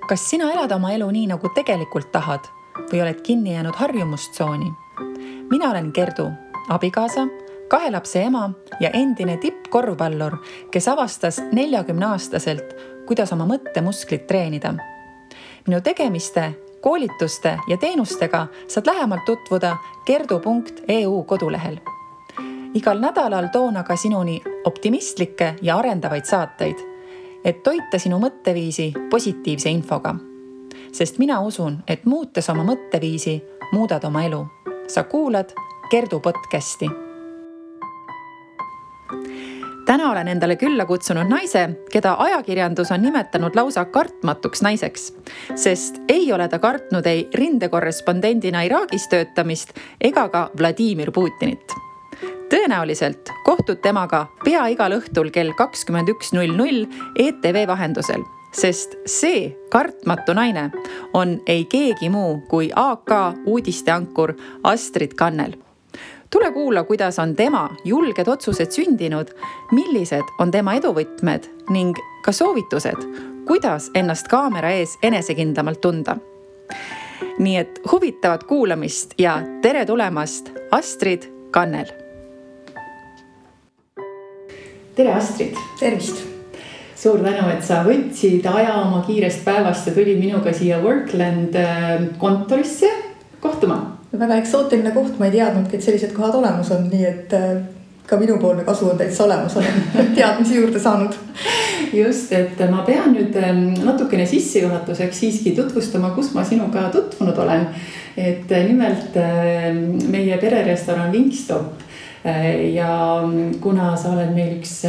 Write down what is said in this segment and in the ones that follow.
Kas sina elad oma elu nii, nagu tegelikult tahad või oled kinni jäänud harjumustsooni? Mina olen Gerdu, abikaasa, 2 lapse ema ja endine tippkorvpallur, kes avastas 40-aastaselt, kuidas oma mõttemusklit treenida. Minu tegemiste, koolituste ja teenustega saad lähemalt tutvuda gerdu.eu kodulehel. Igal nädalal toon aga sinuni optimistlikke ja arendavaid saateid, et toita sinu mõtteviisi positiivse infoga. Sest mina usun, et muutes oma mõtteviisi, muudad oma elu. Sa kuulad Gerdu podcasti. Täna olen endale külla kutsunud naise, keda ajakirjandus on nimetanud lausa kartmatuks naiseks, sest ei ole ta kartnud ei rindekorrespondendina Iraagis töötamist ega ka Vladimir Putinit. Tõenäoliselt kohtud temaga pea igal õhtul kell 21.00 ETV vahendusel, sest see kartmatu naine on ei keegi muu kui AK uudisteankur Astrid Kannel. Tule kuula, kuidas on tema julged otsused sündinud, millised on tema eduvõtmed ning ka soovitused, kuidas ennast kaamera ees enesekindlamalt tunda. Nii et huvitavat kuulamist ja tere tulemast, Astrid Kannel! Tere, Astrid! Tervist! Suur tänu, et sa võtsid aja oma kiirest päevast ja tulid minuga siia Workland kontorisse kohtuma. Väga eksootiline koht, ma ei teadnudki, et sellised kohad olemas on, nii et ka minupoolne kasu on täitsa olemas, olen teadmisi juurde saanud. Just, et ma pean nüüd natukene sissejuhatuseks siiski tutvustama, kus ma sinuga tutvunud olen. Et nimelt meie pererestoran Wingstop ja kuna sa oled meil üks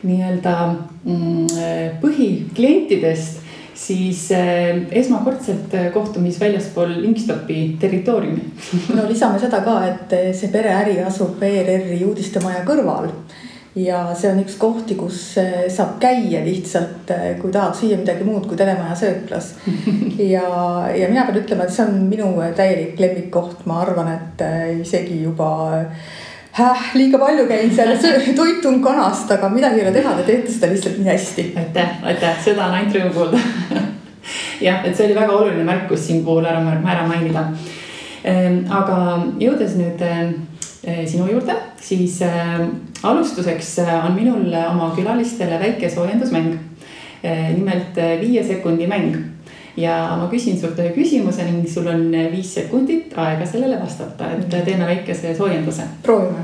nii-öelda põhiklientidest, siis esmakordselt kohtumis väljaspool Wingstopi territooriumi. No lisame seda ka, et see pereäri asub ERR-i uudistemaja kõrval ja see on üks kohti, kus saab käia lihtsalt, kui tahad süüa midagi muud kui telemaja sööklas. Ja mina pean ütlema, et see on minu täielik lemmikkoht. Ma arvan, et isegi juba liiga palju käin seal toitun kanast, aga midagi ei ole teha, te teete seda lihtsalt nii hästi. Aitäh, seda on ainult rõõm kuulda. Jah, et see oli väga oluline märkus siin puhul ära mainida. Aga jõudes nüüd sinu juurde, siis alustuseks on minul oma külalistele väike soojendusmäng. Nimelt 5 sekundi mäng. Ja ma küsin sult ühe küsimuse ning sul on 5 sekundit aega sellele vastata, et teeme väikese soojenduse. Proovime.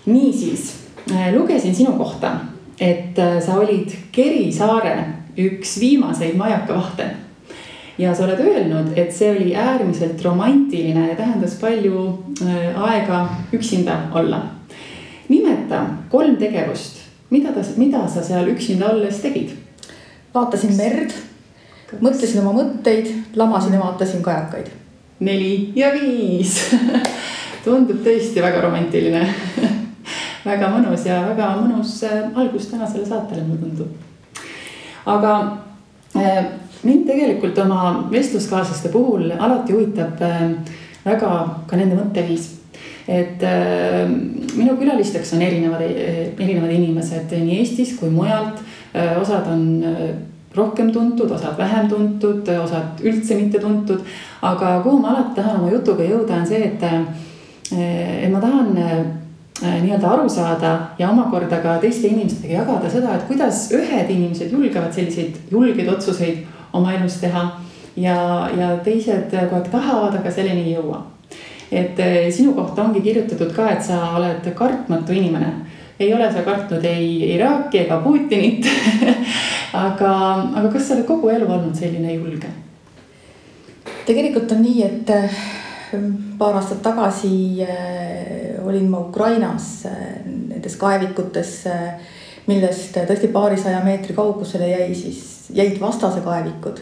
Niisiis, lugesin sinu kohta, et sa olid Kerisaare üks viimaseid majakavahte. Ja sa oled öelnud, et see oli äärmiselt romantiline ja tähendas palju aega üksinda olla. Nimeta 3 tegevust, mida sa seal üksinda olles tegid? Vaatasin merd. Mõtlesin oma mõtteid, lamasin ja vaatasin kajakaid. 4 ja 5. Tundub tõesti väga romantiline. Väga mõnus ja väga mõnus algus tänasele saatele, mulle tundub. Aga mind tegelikult oma vestluskaaslaste puhul alati huvitab väga ka nende mõtteviis. Et minu külalisteks on erinevad inimesed nii Eestis kui mujalt. Osad on rohkem tuntud, osad vähem tuntud, osad üldse mitte tuntud. Aga kuhu ma alati tahan oma jutuga jõuda on see, et ma tahan nii-öelda aru saada ja omakorda ka teiste inimestega jagada seda, et kuidas ühed inimesed julgevad selliseid julgeid otsuseid oma elus teha ja teised kogu aeg tahavad, aga selleni ei jõua. Et sinu kohta ongi kirjutatud ka, et sa oled kartmatu inimene. Ei ole sa kartnud ei Iraaki ega Putinit, aga kas sa oled kogu elu olnud selline julge? Tegelikult on nii, et paar aastat tagasi olin ma Ukrainas nendes kaevikutes, millest tõesti paarisaja meetri kaugusele jäid vastase kaevikud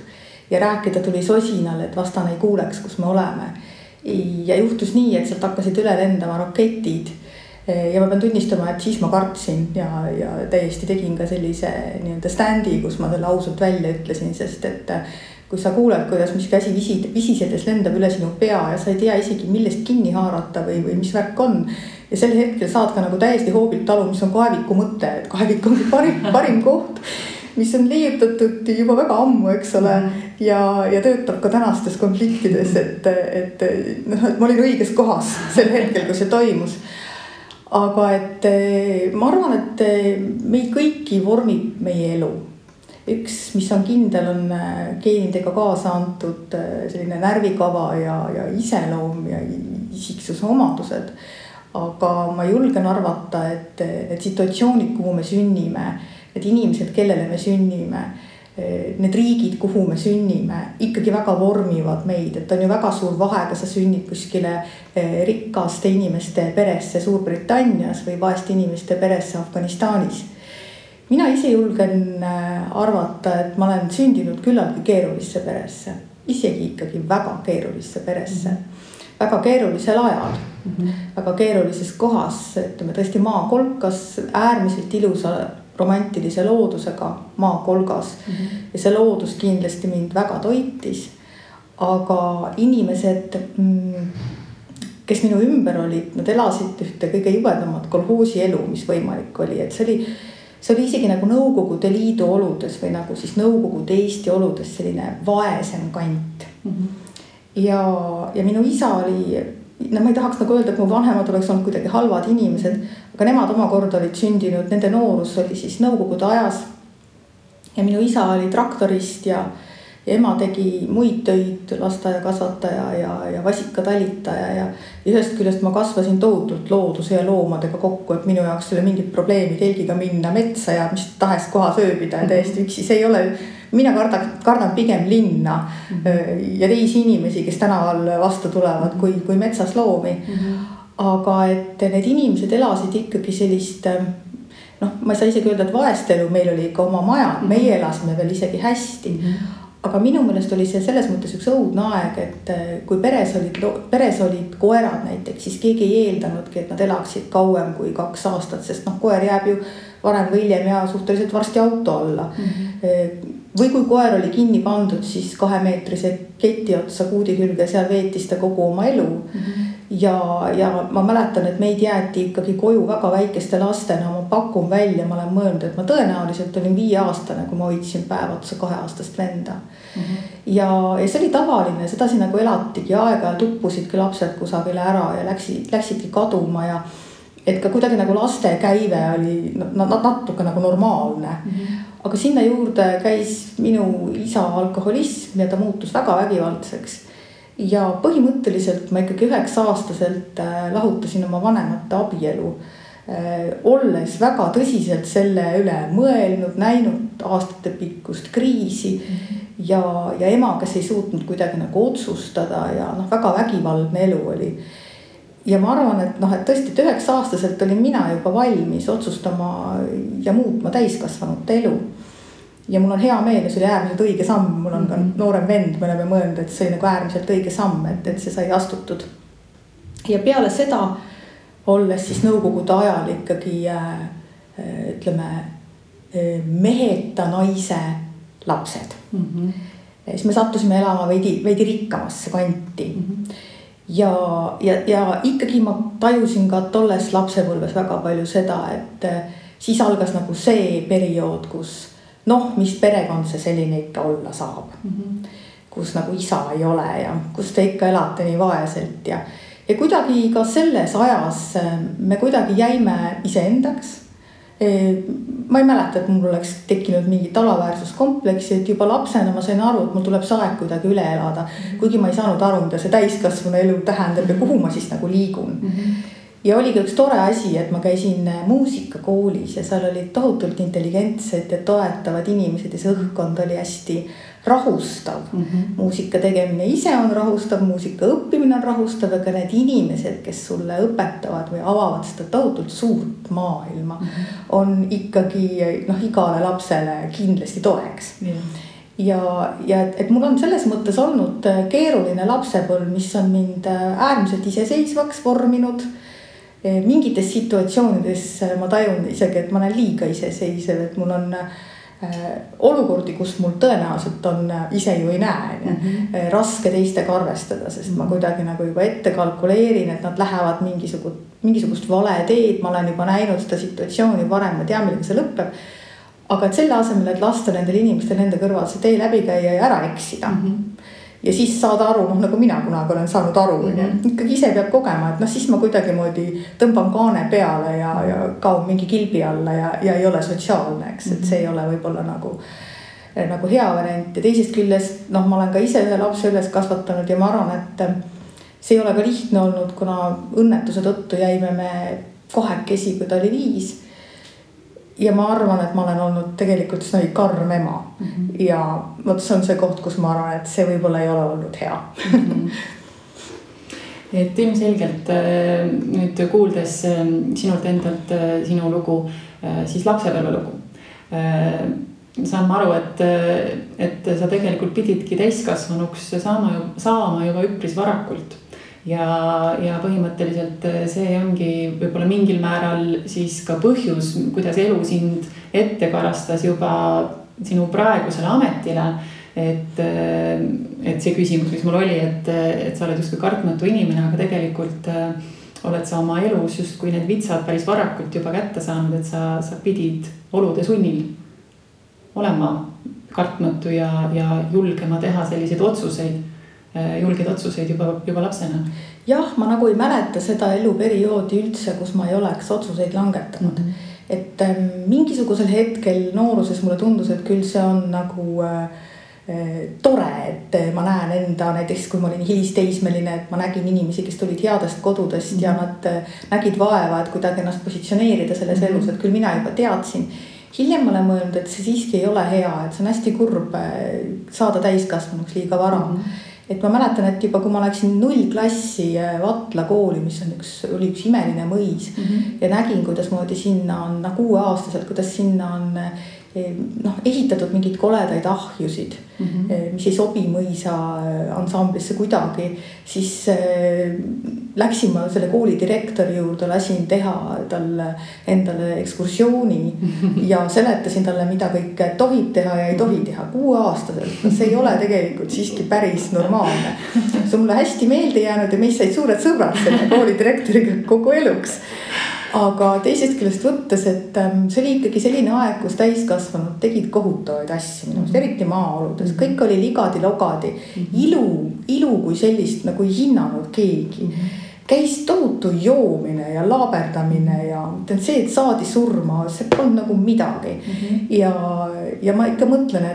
ja rääkida tuli sosinal, et vastane ei kuuleks, kus me oleme. Ja juhtus nii, et sealt hakkasid üle lendama raketid. Ja ma pean tunnistama, et siis ma kartsin ja täiesti tegin ka sellise nii-öelda standi, kus ma selle ausalt välja ütlesin, sest et kui sa kuuled, kuidas mis käsi visisedes lendab üle sinu pea ja sa ei tea isegi millest kinni haarata või mis värk on. Ja sel hetkel saad ka nagu täiesti hoobilt aru, mis on kaeviku mõte, et kaevik on parim koht. mis on leiutatud juba väga ammu, eks ole, ja töötab ka tänastes konfliktides, et ma olin õiges kohas sel hetkel, kui see toimus. Aga et ma arvan, et meid kõiki vormib meie elu. Üks, mis on kindel, on geenidega kaasa antud selline närvikava ja iseloom ja isiksuse omadused. Aga ma julgen arvata, et situatsioonid, kuhu me sünnime, need inimesed, kellele me sünnime, need riigid, kuhu me sünnime, ikkagi väga vormivad meid. Et on ju väga suur vahe, kas sa sünnid kuskile rikaste inimeste peresse Suurbritannias või vaeste inimeste peresse Afganistanis. Mina ise julgen arvata, et ma olen sündinud küllaltki keerulisse peresse, isegi ikkagi väga keerulisse peresse, väga keerulisel ajal, väga keerulises kohas, ütleme tõesti maakolkas, äärmiselt ilusa romantilise loodusega maakolgas ja see loodus kindlasti mind väga toitis, aga inimesed, kes minu ümber olid, nad elasid ühte kõige jubedamat kolhoosi elu, mis võimalik oli, et see oli isegi nagu Nõukogude Liidu oludes või nagu siis Nõukogude Eesti oludes selline vaesem kant. Ja minu isa oli, ma ei tahaks nagu öelda, et mu vanemad oleks olnud kuidagi halvad inimesed, aga nemad omakorda olid sündinud, nende noorus oli siis Nõukogude ajas. Ja minu isa oli traktorist ja ema tegi muid töid, lasteaia kasvataja ja vasikatalitaja ja ühest küljest ma kasvasin tohutult looduse ja loomadega kokku, et minu jaoks oli mingid probleemi telgiga minna metsa ja mis tahes kohas ööbida ja täiesti üksi. See ei ole, mina kardan pigem linna ja teisi inimesi, kes tänaval vastu tulevad kui metsas loomi. Aga et need inimesed elasid ikkagi sellist, ma ei saa isegi öelda, et vaest elu, meil oli ikka oma maja, meie elasime veel isegi hästi. Aga minu meelest oli see selles mõttes üks õudne aeg, et kui peres olid koerad näiteks, siis keegi ei eeldanudki, et nad elaksid kauem kui 2 aastat, sest koer jääb ju varem või hiljem ja suhteliselt varsti auto alla. Või kui koer oli kinni pandud, siis 2-meetrise keti otsa kuudi külge, seal veetis ta kogu oma elu. Ja ma mäletan, et meid jäeti ikkagi koju väga väikeste lastena, ma pakun välja, ma olen mõelnud, et ma tõenäoliselt olin 5-aastane, kui ma hoidsin päev otsa 2-aastast venda. Ja see oli tavaline, sedasi nagu elatigi, aega tuppusidki lapsed kusagile ära ja läksidki kaduma ja et ka kuidagi nagu laste käive oli natuke nagu normaalne. Aga sinna juurde käis minu isa alkoholism ja ta muutus väga vägivaldseks. Ja põhimõtteliselt ma ikkagi 9-aastaselt lahutasin oma vanemate abielu, olles väga tõsiselt selle üle mõelnud, näinud aastate pikkust kriisi ja ema, kes ei suutnud kuidagi nagu otsustada ja väga vägivaldne elu oli. Ja ma arvan, et tõesti 9-aastaselt olin mina juba valmis otsustama ja muutma täiskasvanute elu. Ja mul on hea meel ja see oli äärmiselt õige samm, mul on ka noorem vend, me oleme mõelnud, et see oli nagu äärmiselt õige samm, et see sai astutud. Ja peale seda, olles siis Nõukogude ajal ikkagi, ütleme, meheta naise lapsed. Siis me sattusime elama veidi rikkamasse kanti. Ja ikkagi ma tajusin ka tolles lapsepõlves väga palju seda, et siis algas nagu see periood, kus mis perekond see selline ikka olla saab, kus nagu isa ei ole ja kus te ikka elate nii vaeselt ja kuidagi ka selles ajas me kuidagi jäime iseendaks. Ma ei mäleta, et mul oleks tekkinud mingi alaväärsuskompleksi, et juba lapsena ma sain aru, et mul tuleb see aeg kuidagi üle elada, kuigi ma ei saanud aru, mida see täiskasvanu elu tähendab ja kuhu ma siis nagu liigun. Ja oli ka üks tore asi, et ma käisin muusikakoolis ja seal olid tohutult intelligentsed ja toetavad inimesed ja see õhkkond oli hästi rahustav. Muusika tegemine ise on rahustav, muusika õppimine on rahustav, aga need inimesed, kes sulle õpetavad või avavad seda tohutult suurt maailma, on ikkagi igale lapsele kindlasti toeks. Ja et mul on selles mõttes olnud keeruline lapsepõlv, mis on mind äärmiselt iseseisvaks vorminud. Mingites situatsioonides ma tajun isegi, et ma olen liiga iseseisev, et mul on olukordi, kus mul tõenäoliselt on, ise ju ei näe, raske teistega arvestada, sest ma kuidagi nagu juba ette kalkuleerin, et nad lähevad mingisugust vale teed, ma olen juba näinud seda situatsiooni varem, ma tean, millega see lõpeb. aga et selle asemel, et lasta nendel inimestel nende kõrval see tee läbi käia ja ära eksida. Ja siis saada aru, nagu mina kunagi olen saanud aru, ikkagi ise peab kogema, et siis ma kuidagimoodi tõmban kaane peale ja kaun mingi kilbi alla ja ei ole sotsiaalne, eks, et see ei ole võib-olla nagu hea variant. Ja teisest küljest, ma olen ka ise ühe lapse üles kasvatanud ja ma arvan, et see ei ole ka lihtne olnud, kuna õnnetuse tõttu jäime me kahekesi, kui ta oli 5. Ja ma arvan, et ma olen olnud tegelikult karm ema. Ja see on see koht, kus ma arvan, et see võib-olla ei ole olnud hea. Et ilmselgelt nüüd kuuldes sinult endalt sinu lugu, siis lapsepõlve lugu, saan ma aru, et sa tegelikult pididki täiskasvanuks saama juba üpris varakult. Ja põhimõtteliselt see ongi võib-olla mingil määral siis ka põhjus, kuidas elu sind ette karastas juba sinu praegusele ametile. Et see küsimus, mis mul oli, et sa oled justkui kartmatu inimene, aga tegelikult oled sa oma elus justkui need vitsad päris varakult juba kätte saanud, et sa pidid olude sunnil olema kartmatu ja julgema teha selliseid julgeid otsuseid juba lapsena. Jah, ma nagu ei mäleta seda eluperioodi üldse, kus ma ei oleks otsuseid langetanud. Et mingisugusel hetkel nooruses mulle tundus, et küll see on nagu tore, et ma näen enda, näiteks kui ma olin hilisteismeline, et ma nägin inimesi, kes tulid headest kodudest ja nad nägid vaeva, et kuidagi ennast positsioneerida selles elus, et küll mina juba teadsin. Hiljem ma olen mõelnud, et see siiski ei ole hea, et see on hästi kurb saada täiskasvanuks liiga vara. Et ma mäletan, et juba kui ma läksin 0 klassi Vatla kooli, mis oli üks imeline mõis ja nägin, kuidas moodi sinna on 6-aastaselt, kuidas sinna on ehitatud mingid koledaid ahjusid, mis ei sobi mõisa ansamblisse kuidagi, siis läksin ma selle kooli direktori juurde, lasin teha talle endale ekskursiooni ja seletasin talle, mida kõik tohib teha ja ei tohi teha 6-aastaselt. See ei ole tegelikult siiski päris normaalne. See on mulle hästi meelde jäänud ja meist said suured sõbrad selle kooli direktoriga kogu eluks. Aga teisest küljest võttes, et see oli ikkagi selline aeg, kus täiskasvanud tegid kohutavaid asju, eriti maaoludes. Kõik oli ligadi-logadi. Ilu kui sellist nagu ei hinnanud keegi. Käis tohutu joomine ja laaberdamine ja see, et saadi surma, see polnud nagu midagi. Ja ma ikka mõtlen,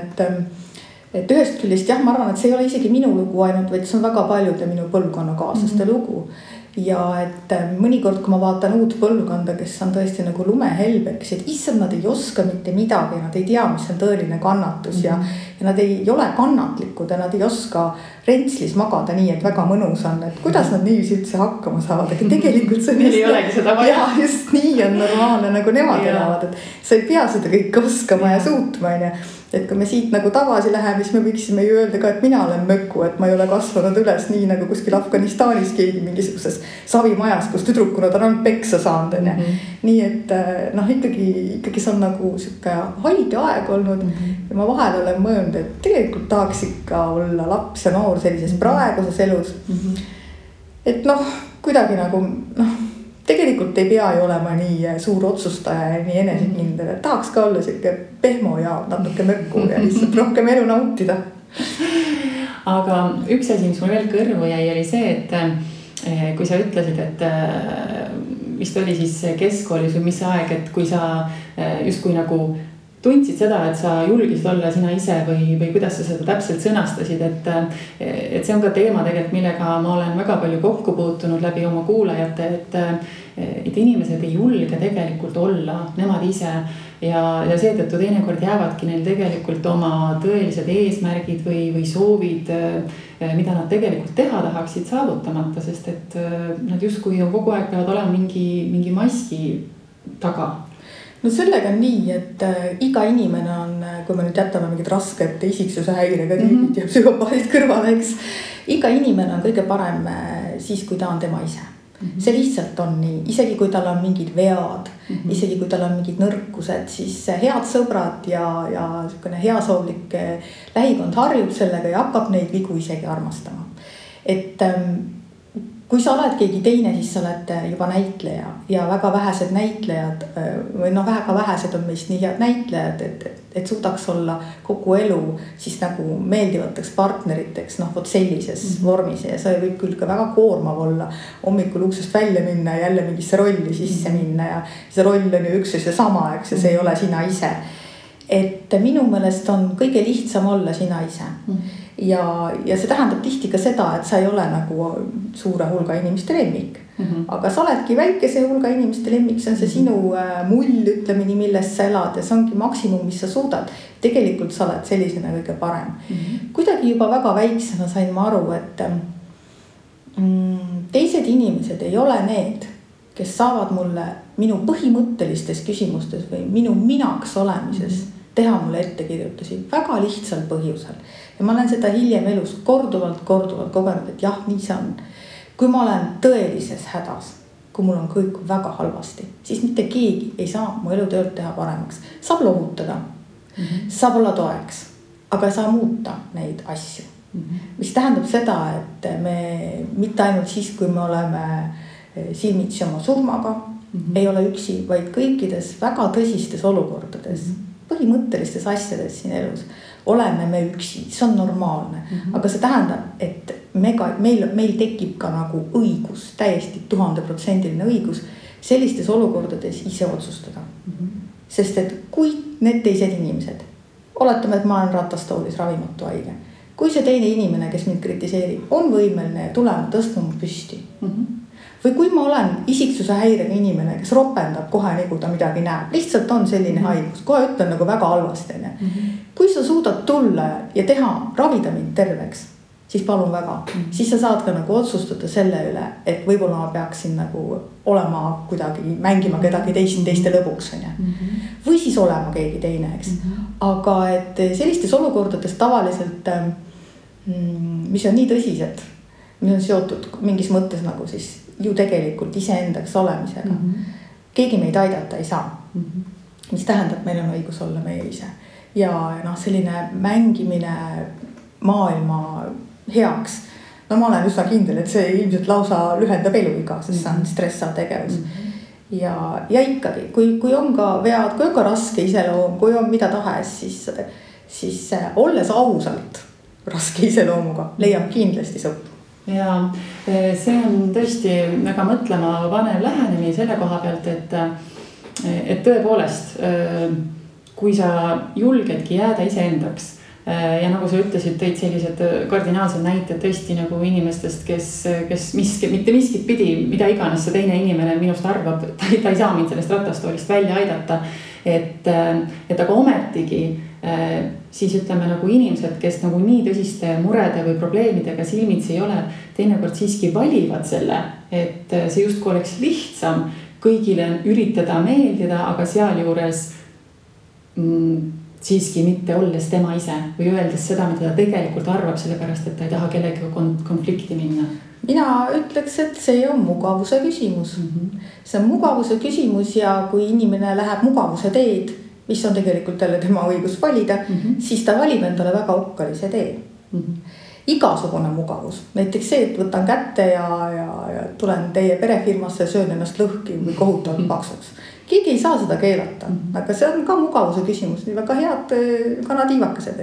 et ühest küljest jah, ma arvan, et see ei ole isegi minu lugu ainult, vaid see on väga paljude minu põlvkonna kaaslaste lugu. Ja et mõnikord, kui ma vaatan uut põlvkonda, kes on tõesti nagu lumehelbeks, et issand, nad ei oska mitte midagi, nad ei tea, mis on tõeline kannatus ja nad ei ole kannatlikud ja nad ei oska rentslis magada nii, et väga mõnus on, et kuidas nad niiviisi üldse hakkama saavad, aga tegelikult see on ei olegi seda vaja. Ja just nii on normaalne, nagu nemad elavad, et sa ei pea seda kõik oskama ja suutma, et kui me siit nagu tagasi läheme, siis me võiksime ju öelda ka, et mina olen möku, et ma ei ole kasvanud üles nii nagu kuskil Afganistanis keegi mingisuguses savimajas, kus tüdrukuna ta on peksa saanud. Nii et ikkagi see on nagu siuke haige aeg olnud ja ma vahel olen mõelnud, et tegelikult tahaks ikka olla laps ja noor sellises praeguses elus. Et kuidagi nagu tegelikult ei pea ju olema nii suur otsustaja ja nii enesekindel, et tahaks ka olla siuke pehmo ja natuke mökku ja lihtsalt rohkem elu nautida. Aga üks asi, mis mul veel kõrvu jäi, oli see, et kui sa ütlesid, et vist oli siis keskkoolis või mis aeg, et kui sa justkui nagu tundsid seda, et sa julgisid olla sina ise või kuidas sa seda täpselt sõnastasid, et see on ka teema tegelikult, millega ma olen väga palju kokku puutunud läbi oma kuulajate, et inimesed ei julge tegelikult olla nemad ise ja seetõttu teinekord jäävadki neil tegelikult oma tõelised eesmärgid või soovid, mida nad tegelikult teha tahaksid saavutamata, sest et nad justkui kogu aeg peavad olema mingi maski taga. No sellega on nii, et iga inimene on, kui me nüüd jätame mingid rasked isiksuse häirega tüübid ja psühhopaadid kõrvale, eks. Iga inimene on kõige parem siis, kui ta on tema ise. See lihtsalt on nii, isegi kui tal on mingid vead, isegi kui tal on mingid nõrkused, siis head sõbrad ja heasoovlik lähikond harjub sellega ja hakkab neid vigu isegi armastama. Et kui sa oled keegi teine, siis sa oled juba näitleja ja väga vähesed näitlejad või väga vähesed on meist nii head näitlejad, et suudaks olla kogu elu siis nagu meeldivateks partneriteks, vot sellises vormis ja see võib küll ka väga koormav olla hommikul uksest välja minna ja jälle mingisse rolli sisse minna ja see roll on ju üks ja seesama, eks ja see ei ole sina ise. Et minu meelest on kõige lihtsam olla sina ise. Ja see tähendab tihti ka seda, et sa ei ole nagu suure hulga inimeste lemmik. Aga sa oledki väikese hulga inimeste lemmik, see on see sinu mull, ütleme nii, milles sa elad ja see ongi maksimum, mis sa suudad. Tegelikult sa oled sellisena kõige parem. Kuidagi juba väga väiksena sain ma aru, et teised inimesed ei ole need, kes saavad mulle minu põhimõttelistes küsimustes või minu minaks olemises teha mulle ettekirjutusi väga lihtsal põhjusel. Ja ma olen seda hiljem elus korduvalt kogenud, et jah, nii see on. Kui ma olen tõelises hädas, kui mul on kõik väga halvasti, siis mitte keegi ei saa mu elutööd teha paremaks. Saab lohutada, saab olla toeks, aga ei saa muuta neid asju. Mis tähendab seda, et me mitte ainult siis, kui me oleme silmitsi oma surmaga, ei ole üksi, vaid kõikides väga tõsistes olukordades, põhimõttelistes asjades siin elus oleme me üksi, see on normaalne, aga see tähendab, et meil tekib ka nagu õigus, täiesti 1000% õigus sellistes olukordades ise otsustada. Sest et kui need teised inimesed, oletame, et ma olen ratastoolis ravimatu haige, kui see teine inimene, kes mind kritiseerib, on võimeline tulema tõstma mu püsti. Või kui ma olen isiksuse häirega inimene, kes ropendab kohe nagu ta midagi näeb, lihtsalt on selline haigus, kohe ütlen nagu väga halvasti. Kui sa suudad tulla ja teha, ravida mind terveks, siis palun väga. Siis sa saad ka nagu otsustada selle üle, et võib-olla ma peaksin nagu olema kuidagi, mängima kedagi teiste lõbuks. Või siis olema keegi teine, eks. Aga et sellistes olukordades tavaliselt, mis on nii tõsised, mis on seotud mingis mõttes nagu siis ju tegelikult iseendaks olemisega. Keegi meid aidata ei saa. Mis tähendab, meil on õigus olla meie ise. Ja selline mängimine maailma heaks. Ma olen üsna kindel, et see ilmselt lausa lühendab eluiga, sest see on stressav tegevus. Ja ikkagi, kui on ka vead, kui on ka raske iseloom, kui on mida tahes, siis olles ausalt raske iseloomuga, leiab kindlasti sõpru. Ja see on tõesti väga mõtlema vanev lähenemine selle koha pealt, et tõepoolest, kui sa julgedki jääda iseendaks ja nagu sa ütlesid, tõid sellised kardinaalsed näited tõesti nagu inimestest, kes mitte miskit pidi, mida iganes see teine inimene minust arvab, ta ei saa mind sellest ratastoolist välja aidata, et aga ometigi siis ütleme nagu inimesed, kes nagu nii tõsiste murede või probleemidega silmitsi ei ole, teinekord siiski valivad selle, et see justkui oleks lihtsam kõigile üritada meeldida, aga sealjuures siiski mitte olles tema ise või öeldes seda, mida ta tegelikult arvab, sellepärast, et ta ei taha kellega konflikti minna. Mina ütleks, et see on mugavuse küsimus. See on mugavuse küsimus ja kui inimene läheb mugavuse teed, mis on tegelikult jälle tema õigus valida, siis ta valib endale väga okkalise tee. Igasugune mugavus. Näiteks see, et võtan kätte ja tulen teie perefirmasse ja söön ennast lõhki või kohutavalt paksuks. Keegi ei saa seda keelata, aga see on ka mugavuse küsimus. Nii väga head kanatiivakesed.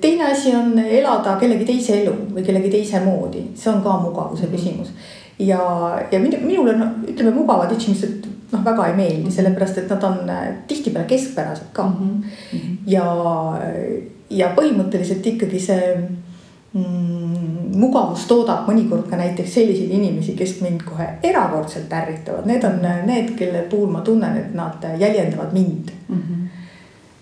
Teine asi on elada kellegi teise elu või kellegi teise moodi. See on ka mugavuse küsimus. Ja minule, ütleme, mugavad inimesed väga ei meeldi, sellepärast, et nad on tihtipeale keskpärased ka. Ja põhimõtteliselt ikkagi see mugavus toodab mõnikord ka näiteks selliseid inimesi, kes mind kohe erakordselt ärritavad. Need on need, kelle puhul ma tunnen, et nad jäljendavad mind.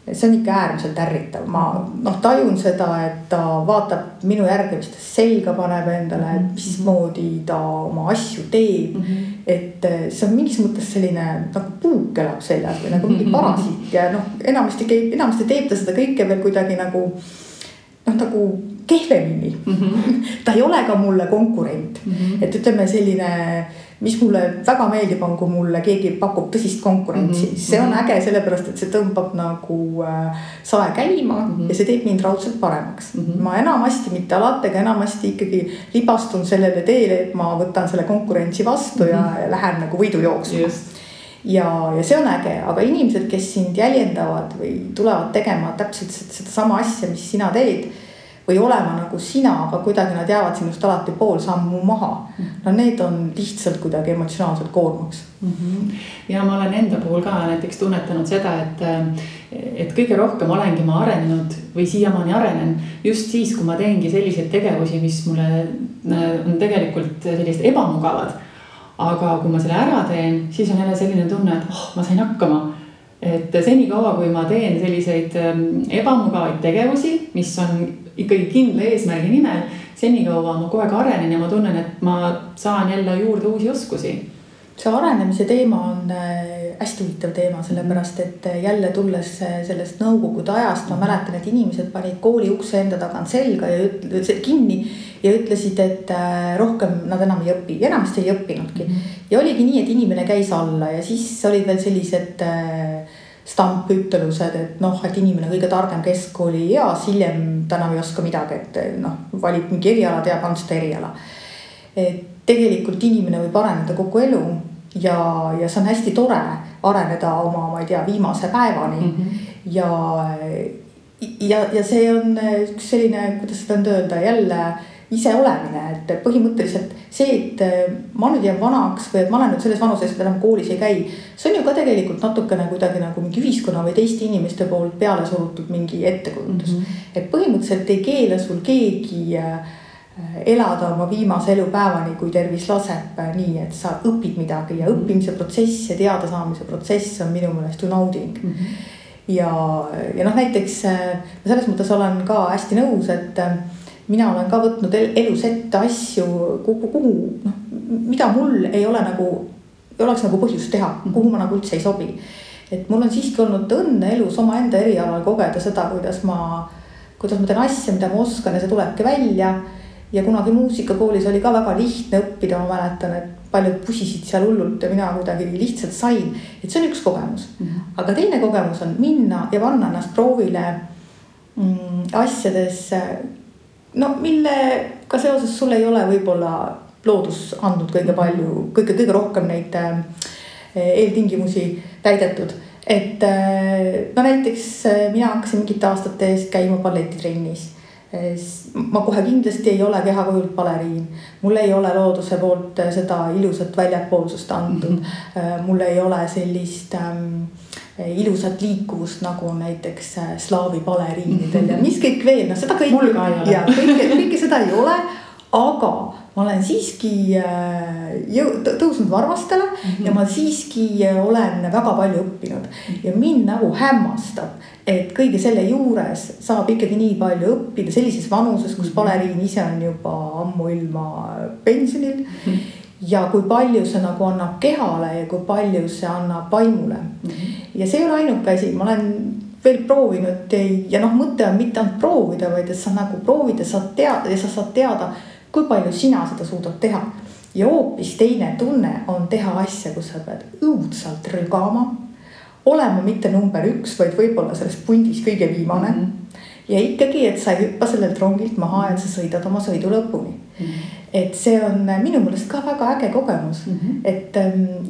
See on ikka äärmiselt ärritav. Ma tajun seda, et ta vaatab minu järgi, mis ta selga paneb endale, et mismoodi ta oma asju teeb. Et see on mingis mõttes selline nagu puuk elab seljas või nagu mingi parasiit ja enamasti teeb ta seda kõike veel kuidagi nagu kehvemini. Ta ei ole ka mulle konkurent. Et ütleme selline mis mulle väga meeldib on, kui mulle keegi pakub tõsist konkurentsi. See on äge sellepärast, et see tõmbab nagu sae käima ja see teeb mind raudselt paremaks. Ma enamasti, mitte alati, aga enamasti ikkagi libastun sellele teele, et ma võtan selle konkurentsi vastu ja lähen nagu võidu jooksma. Ja see on äge, aga inimesed, kes sind jäljendavad või tulevad tegema täpselt seda sama asja, mis sina teed, või olema nagu sina, aga kuidagi nad jäävad sinust alati pool sammu maha. No need on lihtsalt kuidagi emotsionaalselt koormaks. Ja ma olen enda puhul ka näiteks tunnetanud seda, et kõige rohkem olengi ma arenenud või siiamaani arenen just siis, kui ma teengi selliseid tegevusi, mis mulle on tegelikult sellised ebamugavad. Aga kui ma selle ära teen, siis on jälle selline tunne, et ma sain hakkama. Et senikaua, kui ma teen selliseid ebamugavaid tegevusi, mis on ikkagi kindla eesmärgi nimel, senikaua ma kogu aeg arenen ja ma tunnen, et ma saan jälle juurde uusi oskusi. See arenemise teema on hästi huvitav teema, sellepärast, et jälle tulles sellest nõukogude ajast, ma mäletan, et inimesed panid kooli ukse enda tagant selga ja kinni ja ütlesid, et rohkem nad enam ei õpi. Enamasti ei õppinudki. Ja oligi nii, et inimene käis alla ja siis olid veel sellised stampütelused, et inimene kõige targem keskkooli eas, hiljem ta enam ei oska midagi, et valib mingi eriala, teab ainult seda eriala. Et tegelikult inimene võib areneda kogu elu ja see on hästi tore areneda oma, ma ei tea, viimase päevani. Ja see on üks selline, kuidas seda on öelda, jälle ise olemine, et põhimõtteliselt see, et ma nüüd jään vanaks või et ma olen nüüd selles vanuses, et enam koolis ei käi, see on ju ka tegelikult natukene kuidagi nagu mingi ühiskonna või teiste inimeste poolt peale surutud mingi ettekujutus. Et põhimõtteliselt ei keela sul keegi elada oma viimase elupäevani, kui tervis laseb nii, et sa õpid midagi ja õppimise protsess ja teada saamise protsess on minu meelest ju nauding. Ja näiteks selles mõttes olen ka hästi nõus, et mina olen ka võtnud elus ette asju, kuhu, mida mul ei oleks nagu põhjust teha, kuhu ma nagu üldse ei sobi. Et mul on siiski olnud õnne elus oma enda erialal kogeda seda, kuidas ma teen asja, mida ma oskan ja see tulebki välja. Ja kunagi muusikakoolis oli ka väga lihtne õppida, ma mäletan, et paljud pusisid seal hullult ja mina kuidagi lihtsalt sain. Et see on üks kogemus. Aga teine kogemus on minna ja panna ennast proovile asjades, millega seoses sul ei ole võib-olla loodus andnud kõige palju, kõige rohkem neid eeltingimusi täidetud. Et näiteks mina hakkasin mingite aastate eest käima balletitrennis. Ma kohe kindlasti ei ole kehakujult baleriin. Mul ei ole looduse poolt seda ilusat väljapoolsust antud. Mul ei ole sellist ilusat liikuvust nagu näiteks slaavi baleriinidel ja mis kõik veel, seda kõike seda ei ole, aga ma olen siiski tõusnud varvastele ja ma siiski olen väga palju õppinud ja mind nagu hämmastab, et kõige selle juures saab ikkagi nii palju õppida sellises vanuses, kus baleriin ise on juba ammu ilma pensionil ja kui palju see nagu annab kehale ja kui palju see annab vaimule. Ja see ei ole ainuke asi, ma olen veel proovinud ja mõte on mitte ainult proovida, vaid et sa nagu proovid ja sa saad teada, kui palju sina seda suudad teha. Ja hoopis teine tunne on teha asja, kus sa pead õudselt rügama, olema mitte number 1, vaid võib-olla selles pundis kõige viimane. Ja ikkagi, et sa ei hüppa sellelt rongilt maha, et sa sõidad oma sõidu lõpuni. Et see on minu mõelest ka väga äge kogemus. Et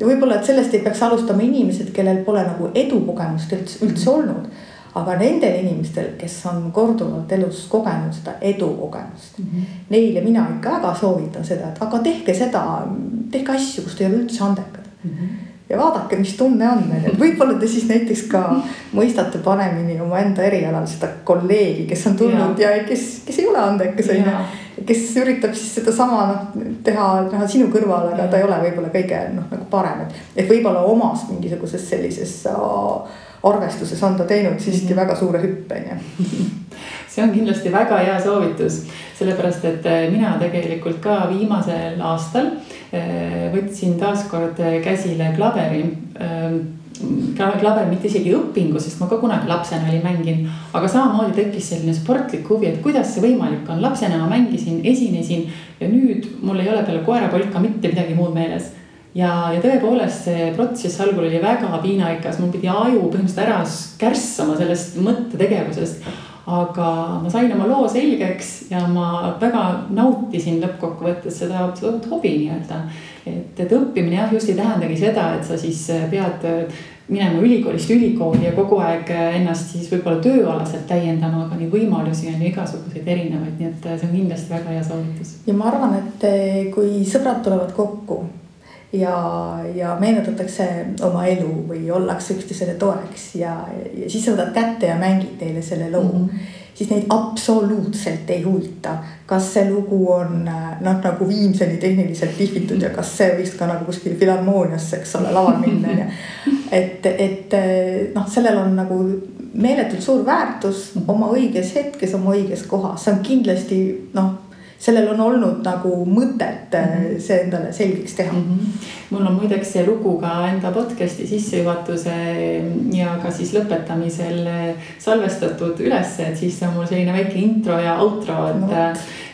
võib-olla, et sellest ei peaks alustama inimesed, kellel pole nagu edukogemust üldse olnud. Aga nendel inimestel, kes on korduvalt elus kogenud seda edukogemust, neile mina ikka väga soovitan seda, et aga tehke asju, kus te ei ole üldse andekad. Ja vaadake, mis tunne on. Et võib-olla te siis näiteks ka mõistate panemini oma enda erialal seda kolleegi, kes on tulnud ja kes ei ole andekas, kes üritab siis seda sama teha sinu kõrval, aga ta ei ole võib-olla kõige nagu parem. Et võib-olla omast mingisuguses sellises arvestuses on ta teinud siiski väga suure hüppe. See on kindlasti väga hea soovitus, sellepärast, et mina tegelikult ka viimasel aastal võtsin taaskord käsile klaveri. Klaver mitte isegi õpingu, sest ma ka kunagi lapsena oli mänginud, aga samamoodi tekkis selline sportlik huvi, et kuidas see võimalik on. Lapsena ma mängisin, esinesin ja nüüd mul ei ole peale koerapolka mitte midagi muud meeles. ja tõepoolest see protsess algul oli väga piinarikas, mul pidi aju põhimõtteliselt ära kärssama sellest mõttetegevusest. Aga ma sain oma loo selgeks ja ma väga nautisin lõppkokkuvõttes seda hobi nii-öelda. Et õppimine jah, just ei tähendagi seda, et sa siis pead minema ülikoolist ülikooli ja kogu aeg ennast siis võib-olla tööalaselt täiendama, aga neid võimalusi on igasuguseid erinevaid, nii et see on kindlasti väga hea soovitus. Ja ma arvan, et kui sõbrad tulevad kokku ja meenutatakse oma elu või ollakse üksteisele toeks ja siis sa võtad kätte ja mängid neile selle loo, siis neid absoluutselt ei huvita, kas see lugu on nagu viimseni tehniliselt lihvitud ja kas see võiks ka nagu kuskil filharmooniasse, eks ole, laval minna. Et sellel on nagu meeletult suur väärtus oma õiges hetkes, oma õiges kohas. See on kindlasti, sellel on olnud nagu mõtet see endale selgeks teha. Mul on muideks see lugu ka enda podcasti sissejuhatuse ja ka siis lõpetamisel salvestatud üles, et siis on mul selline väike intro ja outro,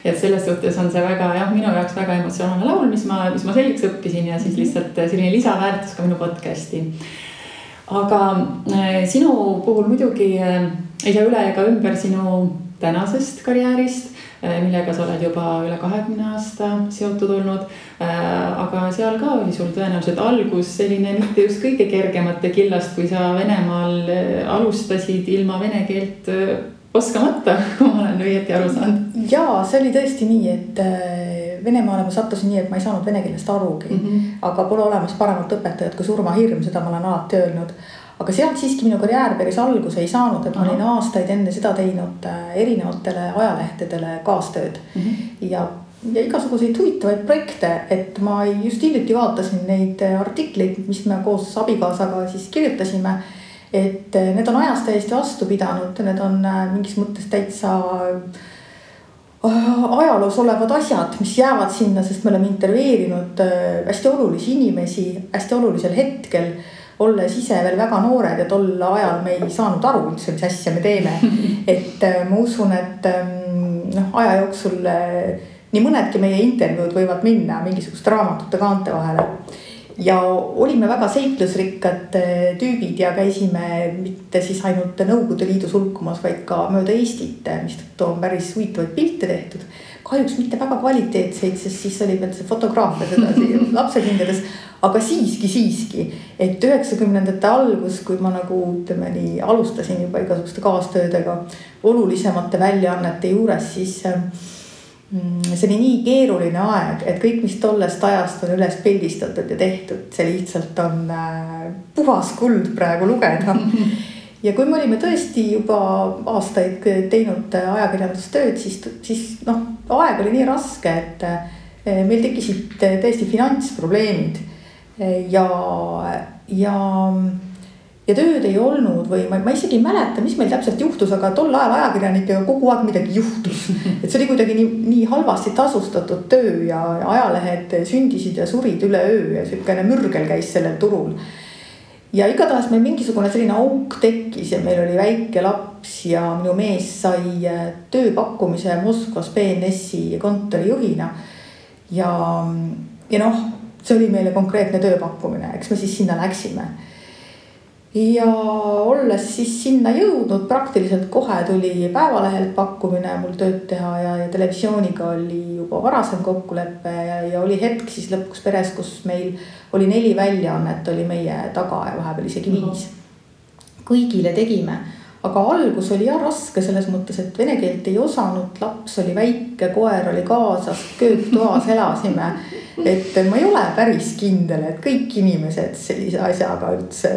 et selles suhtes on see väga, minu jaoks väga emotsionaalne laul, mis ma selgeks õppisin ja siis lihtsalt selline lisaväärtus ka minu podcasti. Aga sinu puhul muidugi ei saa üle ega ümber sinu tänasest karjäärist, millega sa oled juba üle 20 aasta seotud olnud, aga seal ka oli sul tõenäoliselt algus selline mitte just kõige kergemate killast, kui sa Venemaal alustasid ilma vene keelt oskamata, kui ma olen õieti aru saanud. Jaa, see oli tõesti nii, et Venemaale ma sattusin nii, et ma ei saanud vene keelest arugi, aga pole olemas paremat õpetajat kui surmahirm, seda ma olen alati öelnud. Aga sealt siiski minu karjäär päris alguse ei saanud, et ma olin aastaid enne seda teinud erinevatele ajalehtedele kaastööd ja igasuguseid huvitavaid projekte, et ma just hiljuti vaatasin neid artikleid, mis me koos abikaasaga siis kirjutasime, et need on ajast täiesti vastu pidanud, need on mingis mõttes täitsa ajaloos olevad asjad, mis jäävad sinna, sest me oleme intervjueerinud hästi olulisi inimesi hästi olulisel hetkel, olles ise veel väga noored ja tol ajal me ei saanud aru üldse, mis asja me teeme. Et ma usun, et aja jooksul nii mõnedki meie intervjuud võivad minna mingisugust raamatute kaante vahele. Ja olime väga seiklusrikkad tüübid ja käisime mitte siis ainult Nõukogude Liidus hulkumas, vaid ka mööda Eestit, mis on päris huvitavaid pilte tehtud. Kahjuks mitte väga kvaliteetseid, sest siis oli veel see fotograafia sedasi lapsekingades, aga siiski, et 90ndate algus, kui ma nagu ütleme nii alustasin juba igasuguste kaastöödega olulisemate väljaannete juures, siis see oli nii keeruline aeg, et kõik, mis tollest ajast on üles pildistatud ja tehtud, see lihtsalt on puhas kuld praegu lugeda. Ja kui me olime tõesti juba aastaid teinud ajakirjandustööd, siis aeg oli nii raske, et meil tekkisid tõesti finantsprobleemid ja tööd ei olnud või ma isegi ei mäleta, mis meil täpselt juhtus, aga tol ajal ajakirjanikega kogu aeg midagi juhtus. Et see oli kuidagi nii halvasti tasustatud töö ja ajalehed sündisid ja surid üle öö ja selline mürgel käis sellel turul. Ja igatahes meil mingisugune selline auk tekkis ja meil oli väike laps ja minu mees sai tööpakkumise Moskvas BNS-i kontorijuhina. Ja see oli meile konkreetne tööpakkumine, eks me siis sinna läksime. Ja olles siis sinna jõudnud, praktiliselt kohe tuli Päevalehelt pakkumine mul tööd teha ja televisiooniga oli juba varasem kokkuleppe ja oli hetk siis lõpuks peres, kus meil oli 4 väljaannet oli meie taga ja vahepeal isegi 5. Kõigile tegime, aga algus oli raske selles mõttes, et vene keelt ei osanud, laps oli väike, koer oli kaasas, kööktoas elasime, et ma ei ole päris kindel, et kõik inimesed sellise asjaga üldse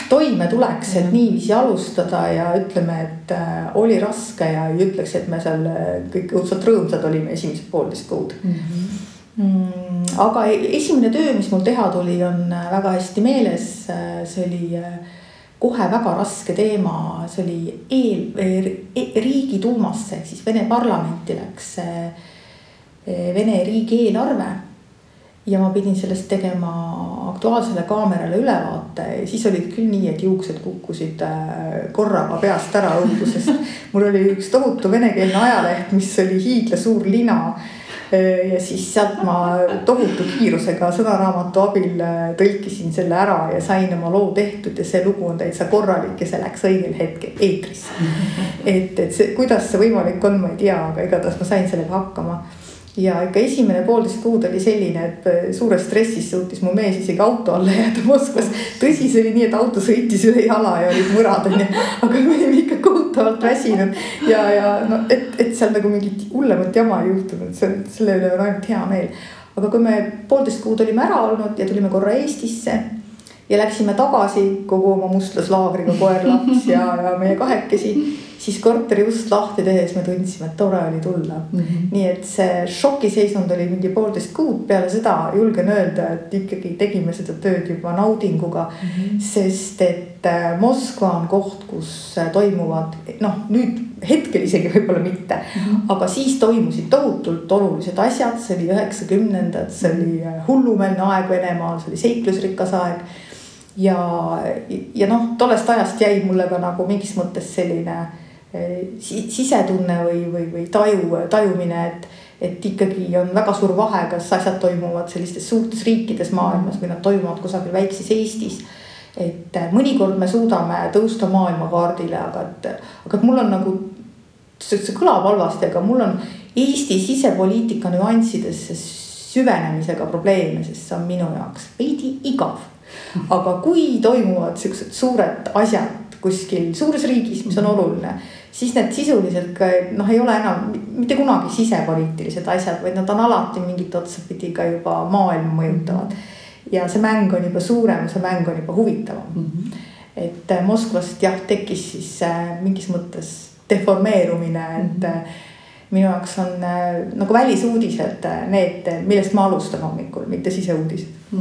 toime tuleks, et niiviisi alustada ja ütleme, et oli raske ja ei ütleks, et me seal kõik õudselt rõõmsad olime esimesed 1,5 kuud. Aga esimene töö, mis mul teha tuli, on väga hästi meeles. See oli kohe väga raske teema. See oli Riigiduumasse, siis Vene parlamenti läks Vene riigi eelarve. Ja ma pidin sellest tegema Aktuaalsele kaamerale ülevaate. Siis olid küll nii, et juuksed kukkusid korraga peast ära õudusest. Mul oli üks tohutu venekeelne ajaleht, mis oli hiigla suur lina. ja siis sealt ma tohutu kiirusega sõnaraamatu abil tõlkisin selle ära ja sain oma loo tehtud ja see lugu on täitsa korralik ja see läks õigel hetkel eetrisse. Et see, kuidas see võimalik on, ma ei tea, aga igatahes ma sain sellega hakkama. Ja ikka esimene 1,5 kuud oli selline, et suures stressis suutis mu mees isegi auto alla jääda Moskvas. Tõsi, see oli nii, et auto sõitis üle jala ja olid mõrad, aga me olime ikka kohutavalt väsinud. Ja no, et seal nagu mingit hullemat jama ei juhtunud, selle üle on ainult hea meel. Aga kui me 1,5 kuud olime ära olnud ja tulime korra Eestisse ja läksime tagasi kogu oma mustlaslaagriga koer, laps ja meie kahekesi, siis korteri ust lahti tehes me tundsime, et tore oli tulla. Nii et see šokiseisund oli mingi 1,5 kuud. Peale seda julgen öelda, et ikkagi tegime seda tööd juba naudinguga, sest et Moskva on koht, kus toimuvad, noh nüüd hetkel isegi võib-olla mitte, aga siis toimusid tohutult olulised asjad. See oli 90-ndad, see oli hullumeelne aeg Venemaal, see oli seiklusrikas aeg. Ja noh, tollest ajast jäi mulle ka nagu mingis mõttes selline sisetunne või tajumine, et ikkagi on väga suur vahe, kas asjad toimuvad sellistes suurtes riikides maailmas või nad toimuvad kusagil väikses Eestis. Et mõnikord me suudame tõusta maailmakaardile, aga mul on nagu, see kõlab halvasti, aga mul on Eesti sisepoliitika nüanssidesse süvenemisega probleeme, sest see on minu jaoks veidi igav. Aga kui toimuvad sellised suured asjad kuskil suures riigis, mis on oluline, siis need sisuliselt ka, ei ole enam mitte kunagi sisepoliitilised asjad, vaid nad on alati mingit otsapidi ka juba maailma mõjutavad. Ja see mäng on juba suurem, see mäng on juba huvitavam. Et Moskvast tekkis siis mingis mõttes deformeerumine, et minu jaoks on nagu välisuudised need, millest ma alustan hommikul, mitte siseuudised.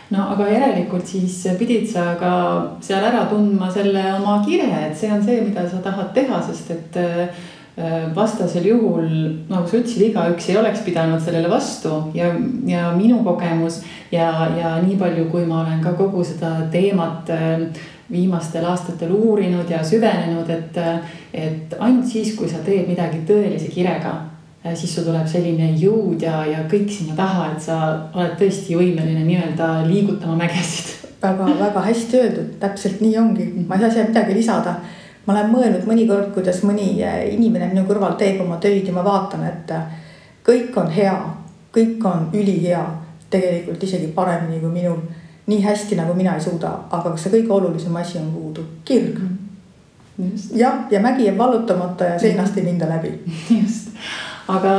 No aga järelikult siis pidid sa ka seal ära tundma selle oma kire, et see on see, mida sa tahad teha, sest et vastasel juhul, nagu sa ütlesid, igaüks ei oleks pidanud sellele vastu ja minu kogemus ja nii palju, kui ma olen ka kogu seda teemat viimastel aastatel uurinud ja süvenenud, et ainult siis, kui sa teed midagi tõelise kirega, siis sul tuleb selline jõud ja kõik sinna taha, et sa oled tõesti võimeline nii-öelda liigutama mägesid. Väga hästi öeldud, täpselt nii ongi. Ma ei saa siia midagi lisada. Ma olen mõelnud mõnikord, kuidas mõni inimene minu kõrval teeb oma töid ja ma vaatan, et kõik on hea, kõik on ülihea, tegelikult isegi paremini kui minul, nii hästi nagu mina ei suuda, aga kas see kõige olulisem asi on puudu? Kirg. Ja mägi jääb vallutamata ja seinast ei minda läbi. Just. Aga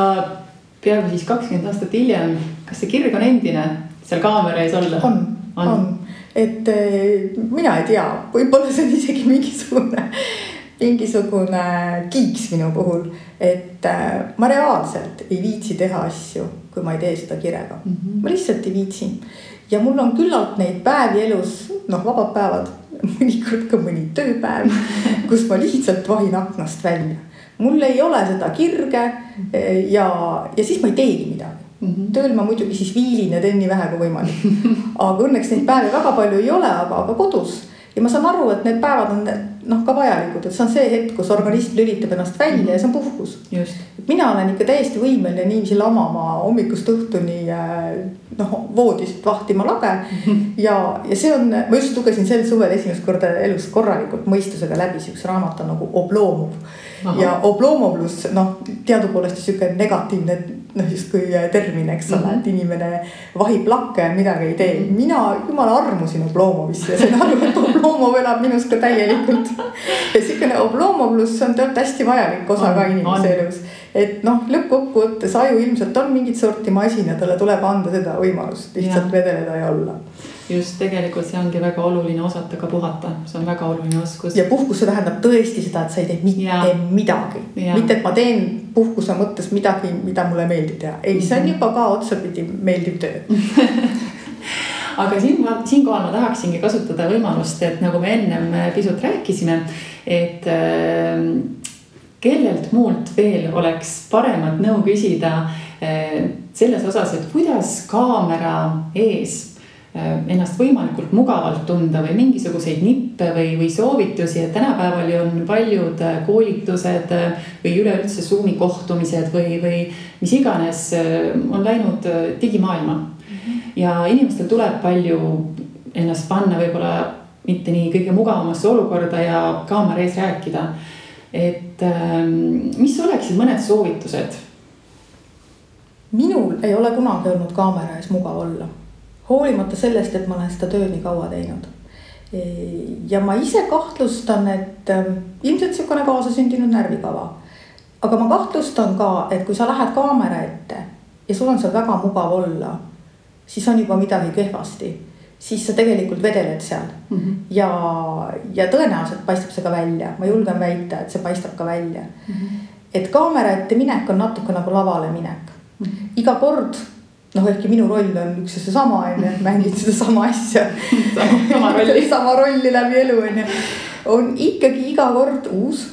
peaaegu siis 20 aastat hiljem, kas see kirg on endine seal kaamera ees olla? On. Et mina ei tea, võib-olla see on isegi mingisugune kiiks minu puhul, et ma reaalselt ei viitsi teha asju, kui ma ei tee seda kirega. Ma lihtsalt ei viitsi. Ja mul on küllalt neid päevi elus, vabad päevad, mõnikord ka mõni tööpäev, kus ma lihtsalt vahin aknast välja. Mul ei ole seda kirge ja siis ma ei teegi midagi. Tööl ma muidugi siis viilin ja teen nii vähe kui võimalik. Aga õnneks neid päevi väga palju ei ole, aga kodus. Ja ma saan aru, et need päevad on ka vajalikud, et see on see hetk, kus organism lülitab ennast välja ja see on puhkus. Just. Mina olen ikka täiesti võimeline niiviisi lamama hommikust õhtuni voodist vahtima lage. Ja see on, ma just lugesin sel suvel esimest korda elus korralikult mõistusega läbi, üks raamat on nagu Oblomov. Ja Oblomovlus, teadupoolest siuke negatiivne just kui termin, eks ole, et inimene vahib lakke ja midagi ei tee. Mina jumala armusin Oblomovisse ja sain aru, et Oblomov elab minus ka täielikult. Ja siukene Oblomovlus on tegelikult hästi vajalik osa ka inimese elus. Et lõppkokkuvõttes aju ilmselt on mingit sorti masin ja talle tuleb anda seda võimalust lihtsalt vedeleda ja olla. Just, tegelikult see ongi väga oluline osata ka puhata. See on väga oluline oskus. Ja puhkus see tähendab tõesti seda, et sa ei tee mitte midagi. Mitte, et ma teen puhkuse mõttes midagi, mida mulle meeldib teha. Ei, see on juba ka otsapidi meeldiv töö. Aga siinkohal ma tahaksingi kasutada võimalust, et nagu me ennem pisut rääkisime, et kellelt muult veel oleks paremat nõu küsida selles osas, et kuidas kaamera ees ennast võimalikult mugavalt tunda või mingisuguseid nippe või soovitusi, et tänapäeval ju on paljud koolitused või üleüldse Zoomi kohtumised või mis iganes on läinud digimaailma. Ja inimestel tuleb palju ennast panna võib-olla mitte nii kõige mugavamasse olukorda ja kaamera ees rääkida. Et mis oleksid mõned soovitused? Minul ei ole kunagi olnud kaamera ees mugav olla. Hoolimata sellest, et ma olen seda tööd nii kaua teinud. Ja ma ise kahtlustan, et ilmselt niisugune kaasasündinud närvikava. Aga ma kahtlustan ka, et kui sa lähed kaamera ette ja sul on seal väga mugav olla, siis on juba midagi kehvasti. Siis sa tegelikult vedeled seal. Ja tõenäoliselt paistab see ka välja. Ma julgen väita, et see paistab ka välja. Et kaamera ette minek on natuke nagu lavale minek. Iga kord, ehkki minu roll on üks ja seesama, mängid seda sama asja. sama rolli läbi elu, on ikkagi iga kord uus.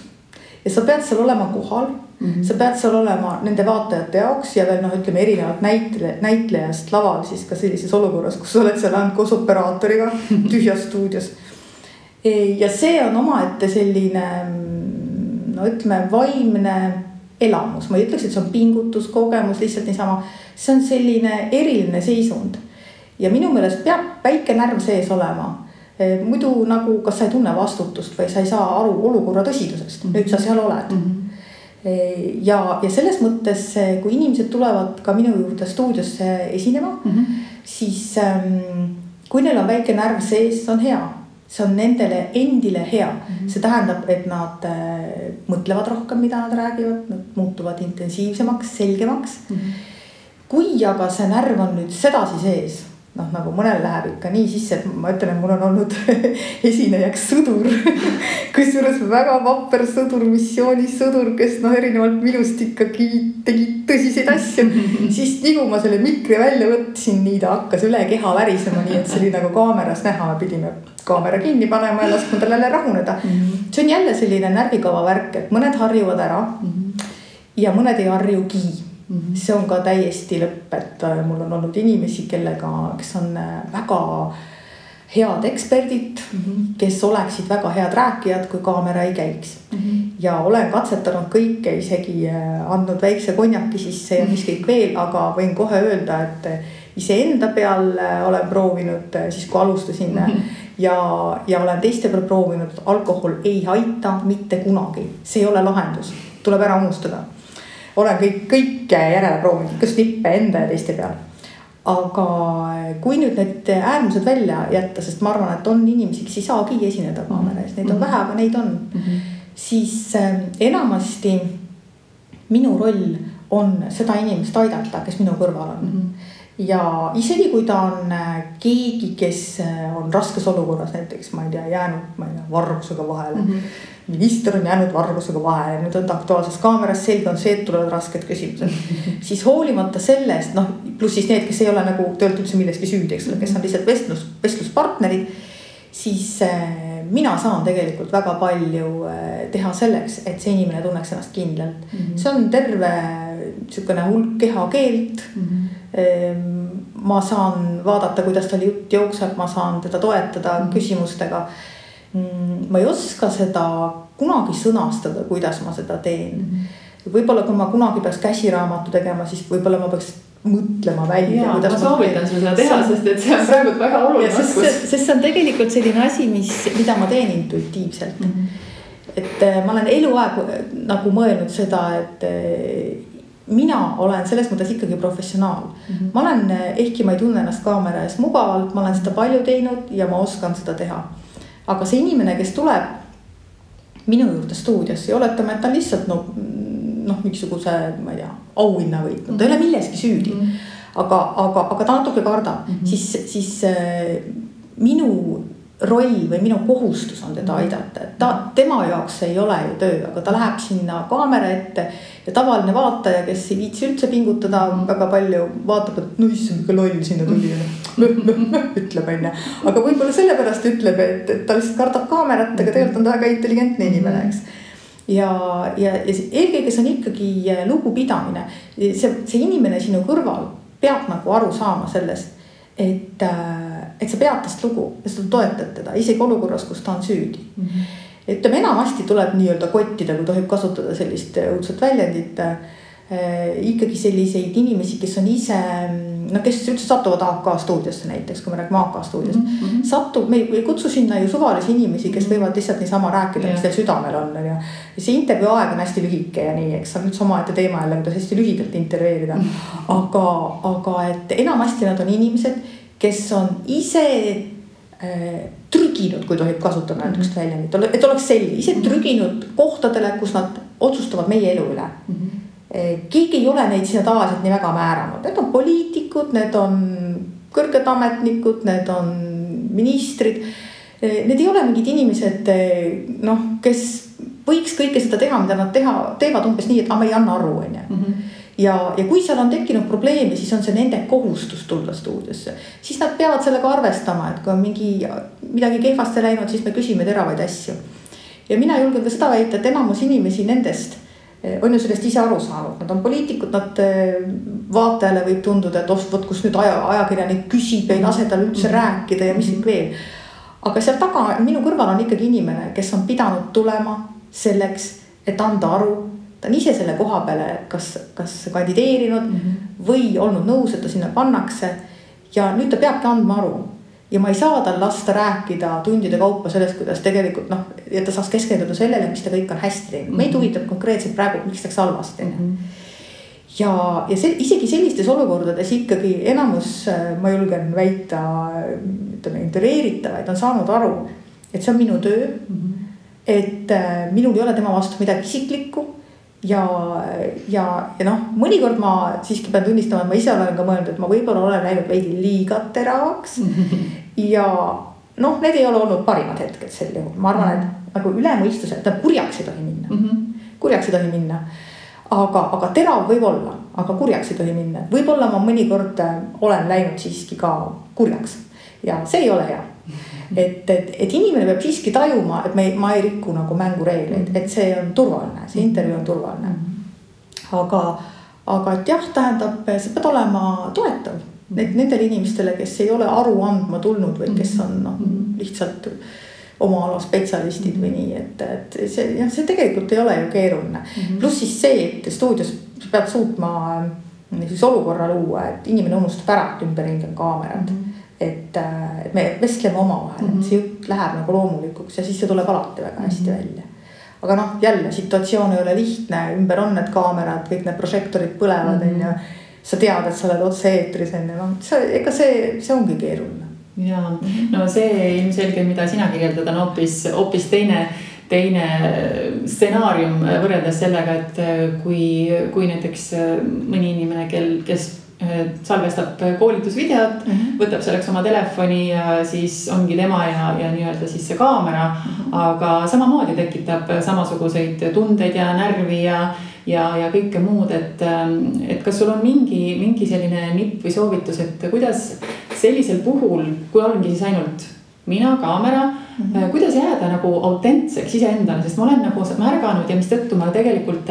Ja sa pead seal olema kohal. Sa pead seal olema nende vaatajate jaoks ja veel ütleme erinevad näitlejast laval siis ka sellises olukorras, kus sa oled seal ainult koos operaatoriga tühjas stuudios. Ja see on omaette selline, ütleme, vaimne elamus. Ma ei ütleks, et see on pingutus, kogemus, lihtsalt niisama. See on selline eriline seisund. Ja minu meelest peab väike närv sees olema. Muidu nagu, kas sa ei tunne vastutust või sa ei saa aru olukorra tõsidusest. Nüüd sa seal oled. Ja selles mõttes, kui inimesed tulevad ka minu juurde stuudiosse esinema, siis kui neil on väike närv sees, see on hea. See on nendele endile hea. See tähendab, et nad mõtlevad rohkem, mida nad räägivad, nad muutuvad intensiivsemaks, selgemaks. Kui aga see närv on nüüd sedasi sees, nagu mõnel läheb ikka nii sisse, et ma ütlen, et mul on olnud esinejaks sõdur, kusjuures väga vapper sõdur, missioonis sõdur, kes erinevalt minust ikkagi tegi tõsiseid asju, siis nii kui ma selle mikri välja võtsin, nii ta hakkas üle keha värisema, nii et see oli nagu kaameras näha, me pidime kaamera kinni panema ja laskma tal jälle rahuneda. See on jälle selline närvikava värk, et mõned harjuvad ära ja mõned ei harjugi. See on ka täiesti lõpp, et mul on olnud inimesi, kes on väga head eksperdid, kes oleksid väga head rääkijad, kui kaamera ei käiks. Ja olen katsetanud kõike, isegi andnud väikse konjaki sisse ja mis kõik veel, aga võin kohe öelda, et iseenda peal olen proovinud, siis kui alustasin ja olen teiste peal proovinud, alkohol ei aita mitte kunagi. See ei ole lahendus, tuleb ära unustada. Olen kõike järele proovinud, kas nippe enda ja teiste peal. Aga kui nüüd need äärmused välja jätta, sest ma arvan, et on inimesi, kes ei saagi esineda kaamera ees, neid on vähe, aga neid on, siis enamasti minu roll on seda inimest aidata, kes minu kõrval on. Ja isegi kui ta on keegi, kes on raskes olukorras, näiteks ma ei tea, jäänud vargusega vahele. Minister on jäänud vargusega vahele, nüüd on ta aktuaalses kaameras, selge on see, et tulevad rasked küsimused. Siis hoolimata sellest, pluss siis need, kes ei ole nagu töölt üldse milleski süüdi, eks ole, kes on lihtsalt vestluspartnerid, siis mina saan tegelikult väga palju teha selleks, et see inimene tunneks ennast kindlalt. See on terve niisugune hulk kehakeelt. Ma saan vaadata, kuidas tal jutt jookseb, ma saan teda toetada küsimustega. Ma ei oska seda kunagi sõnastada, kuidas ma seda teen. Võib-olla kui ma kunagi peaks käsiraamatu tegema, siis võib-olla ma peaks mõtlema välja. Ma soovitan sul seda teha, sest et see on praegu väga oluline oskus. Sest see on tegelikult selline asi, mida ma teen intuitiivselt. Et ma olen eluaeg nagu mõelnud seda, et mina olen selles mõttes ikkagi professionaal. Ma olen, ehkki ma ei tunne ennast kaamera ees mugavalt, ma olen seda palju teinud ja ma oskan seda teha. Aga see inimene, kes tuleb minu juurde stuudios ja oletame, et ta lihtsalt mingisuguse, ma ei tea, auhinna võitnud, ta ei ole milleski süüdi, aga ta natuke kardab, siis minu roll või minu kohustus on teda aidata, et tema jaoks ei ole ju töö, aga ta läheb sinna kaamera ette ja tavaline vaataja, kes ei viitsi üldse pingutada väga palju, vaatab, et issand, kui loll sinna tuli, ütleb enne. Aga võib-olla sellepärast ütleb, et ta lihtsalt kardab kaamerat, aga tegelikult on ta väga intelligentne inimene, eks. Ja eelkõige see on ikkagi lugupidamine. See inimene sinu kõrval peab nagu aru saama sellest, et et sa pead tast lugu ja sa toetad teda isegi olukorras, kus ta on süüdi. Ütleme, enamasti tuleb nii-öelda kottida, kui tohib kasutada sellist õudset väljendit, ikkagi selliseid inimesi, kes on ise, kes üldse satuvad AK stuudiosse näiteks, kui me räägime AK stuudiost, me ei kutsu sinna ju suvalisi inimesi, kes võivad lihtsalt niisama rääkida, mis teil südamel on. Ja see intervjuu aeg on hästi lühike ja nii, eks on üldse omaette teema jälle, kuidas hästi lühidalt intervjueerida. Aga et enamasti nad on inimesed, kes on ise trüginud, kui tohib kasutada näiteks väljendit, et oleks selge, ise trüginud kohtadele, kus nad otsustavad meie elu üle. Keegi ei ole neid sinna tavaliselt nii väga määranud. Need on poliitikud, need on kõrged ametnikud, need on ministrid. Need ei ole mingid inimesed, kes võiks kõike seda teha, mida nad teevad umbes nii, et me ei anna aru. Ja kui seal on tekkinud probleemi, siis on see nende kohustus tulla stuudiosse. Siis nad peavad sellega arvestama, et kui on midagi kehvasti läinud, siis me küsime teravaid asju. Ja mina julgen ka seda väita, et enamus inimesi nendest on ju sellest ise aru saanud. Nad on poliitikud, nad vaatajale võib tunduda, et võt, kus nüüd ajakirjanik küsib ja ei lase tal üldse rääkida ja mis veel. Aga seal taga minu kõrval on ikkagi inimene, kes on pidanud tulema selleks, et anda aru. Ta on ise selle koha peale kas kandideerinud või olnud nõus, et ta sinna pannakse. Ja nüüd ta peabki andma aru. Ja ma ei saa tal lasta rääkida tundide kaupa sellest, kuidas tegelikult, et ta saaks keskenduda sellele, mis ta kõik on hästi teinud. Meid huvitab konkreetselt praegu, miks läks halvasti. Ja isegi sellistes olukordades ikkagi enamus, ma julgen väita, intervjueeritavaid on saanud aru, et see on minu töö, et minul ei ole tema vastu midagi isiklikku. Ja mõnikord ma siiski pean tunnistama, et ma ise olen ka mõelnud, et ma võib-olla olen läinud veidi liiga teravaks. Ja need ei ole olnud parimad hetked sel juhul. Ma arvan, et nagu ülemõistuse, et kurjaks ei tohi minna. Kurjaks ei tohi minna. Aga terav võib olla, aga kurjaks ei tohi minna. Võib-olla ma mõnikord olen läinud siiski ka kurjaks. Ja see ei ole hea. Et inimene peab siiski tajuma, et ma ei rikku nagu mängureegleid, et see on turvaline, see intervjuu on turvaline. Aga et jah, tähendab, see peab olema toetav nendele inimestele, kes ei ole aru andma tulnud või kes on lihtsalt oma ala spetsialistid või nii, et see tegelikult ei ole ju keeruline. Pluss siis see, et stuudios peab suutma olukorra luua, et inimene unustab ära, et ümberringi on kaamerad. Et me vestleme oma vahel, see jutt läheb nagu loomulikuks ja siis see tuleb alati väga hästi välja. Aga jälle situatsioon ei ole lihtne, ümber on need kaamerad, kõik need prožektorid põlevad ja sa tead, et sa oled otse eetris enne. Ega see ongi keeruline. Ja, see ilmselge, mida sina kirjeldad, on hoopis teine stsenaarium võrreldes sellega, et kui näiteks mõni inimene, kes salvestab koolitusvideot, võtab selleks oma telefoni ja siis ongi tema ja nii-öelda siis see kaamera, aga samamoodi tekitab samasuguseid tundeid ja närvi ja kõike muud, et kas sul on mingi selline nipp või soovitus, et kuidas sellisel puhul, kui ongi siis ainult mina, kaamera, kuidas jääda nagu autentseks iseendale, sest ma olen nagu märganud ja mis tõttu ma tegelikult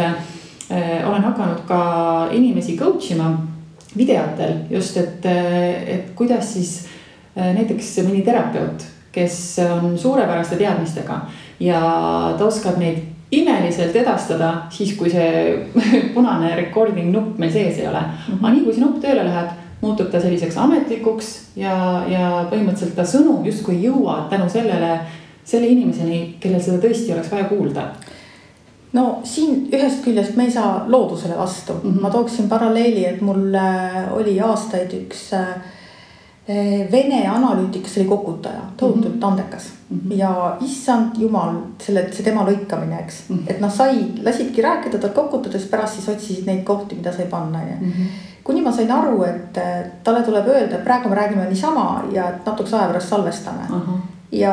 olen hakanud ka inimesi coachima videotel just, et kuidas siis näiteks mõni terapeut, kes on suurepäraste teadmistega ja ta oskab neid imeliselt edastada siis, kui see punane recording nupp meil sees ei ole. Aga nii kui see nupp tööle läheb, muutub ta selliseks ametlikuks ja põhimõtteliselt ta sõnum justkui jõuab tänu selle inimeseni, kellel seda tõesti oleks vaja kuulda. Siin ühest küljest me ei saa loodusele vastu. Ma tooksin paralleeli, et mul oli aastaid üks Vene analüütik, kes oli kokutaja, tohutult andekas. Ja issand jumal, see tema lõikamine, eks. Et lasidki rääkida tal kokutades, pärast siis otsisid neid kohti, mida sai panna. Kuni ma sain aru, et talle tuleb öelda, et praegu me räägime niisama ja natuks aja pärast salvestame. Ja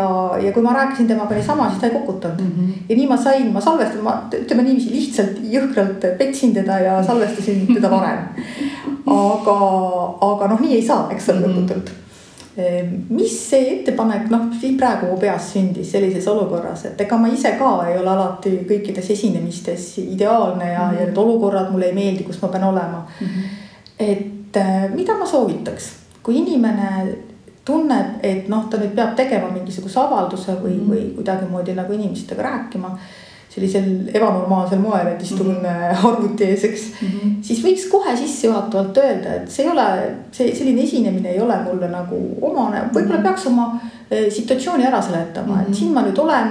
kui ma rääkisin temaga niisama, siis ta ei kokutanud. Ja nii ma salvestan, ütleme niiviisi lihtsalt jõhkralt petsin teda ja salvestasin teda varem. Aga nii ei saa, eks ole lõputult. Mis see ettepanek, siin praegu mu peas sündis sellises olukorras, et ega ma ise ka ei ole alati kõikides esinemistes ideaalne ja need olukorrad mulle ei meeldi, kus ma pean olema. Et mida ma soovitaks, kui inimene tunneb, et ta nüüd peab tegema mingisuguse avalduse või kuidagi moodi nagu inimestega rääkima sellisel ebanormaalsel moel, et istun arvuti ees, eks, siis võiks kohe sissejuhatavalt öelda, et see ei ole, selline esinemine ei ole mulle nagu omane, võib-olla peaks oma situatsiooni ära seletama, et siin ma nüüd olen,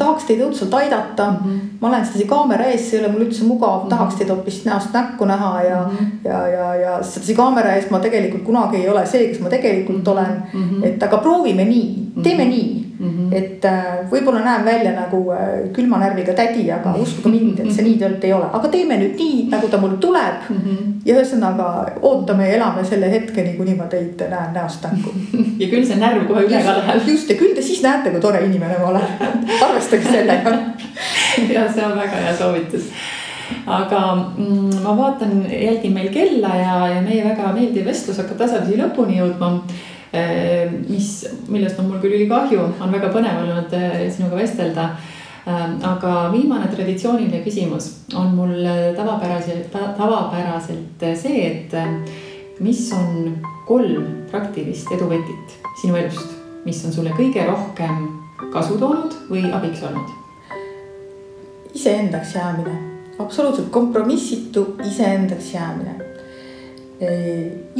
tahaks teid õudselt aidata, ma olen sedasi kaamera ees, see ei ole mul üldse mugav, tahaks teid hoopis näost näkku näha ja sedasi kaamera ees ma tegelikult kunagi ei ole see, kes ma tegelikult olen, et aga proovime nii, teeme nii. Et võib-olla näen välja nagu külma närviga tädi, aga uskuge mind, et see nii tõelt ei ole. Aga teeme nüüd nii, nagu ta mul tuleb ja ühesõnaga ootame ja elame selle hetkeni, kuni ma teid näen näost näkku. Ja küll see närv kohe üle ka läheb. Just, ja küll te siis näete, kui tore inimene ma olen. Arvestage sellega. Ja see on väga hea soovitus. Aga ma vaatan, jälgin meil kella ja meie väga meeldiv vestlus hakkab tasapisi lõpuni jõudma. Millest on mul küll ülikahju, on väga põnev olnud sinuga vestelda. Aga viimane traditsiooniline küsimus on mul tavapäraselt see, et mis on 3 praktilist eduvõtit sinu elust, mis on sulle kõige rohkem kasu toonud või abiks olnud? Iseendaks jäämine, absoluutselt kompromissitu iseendaks jäämine.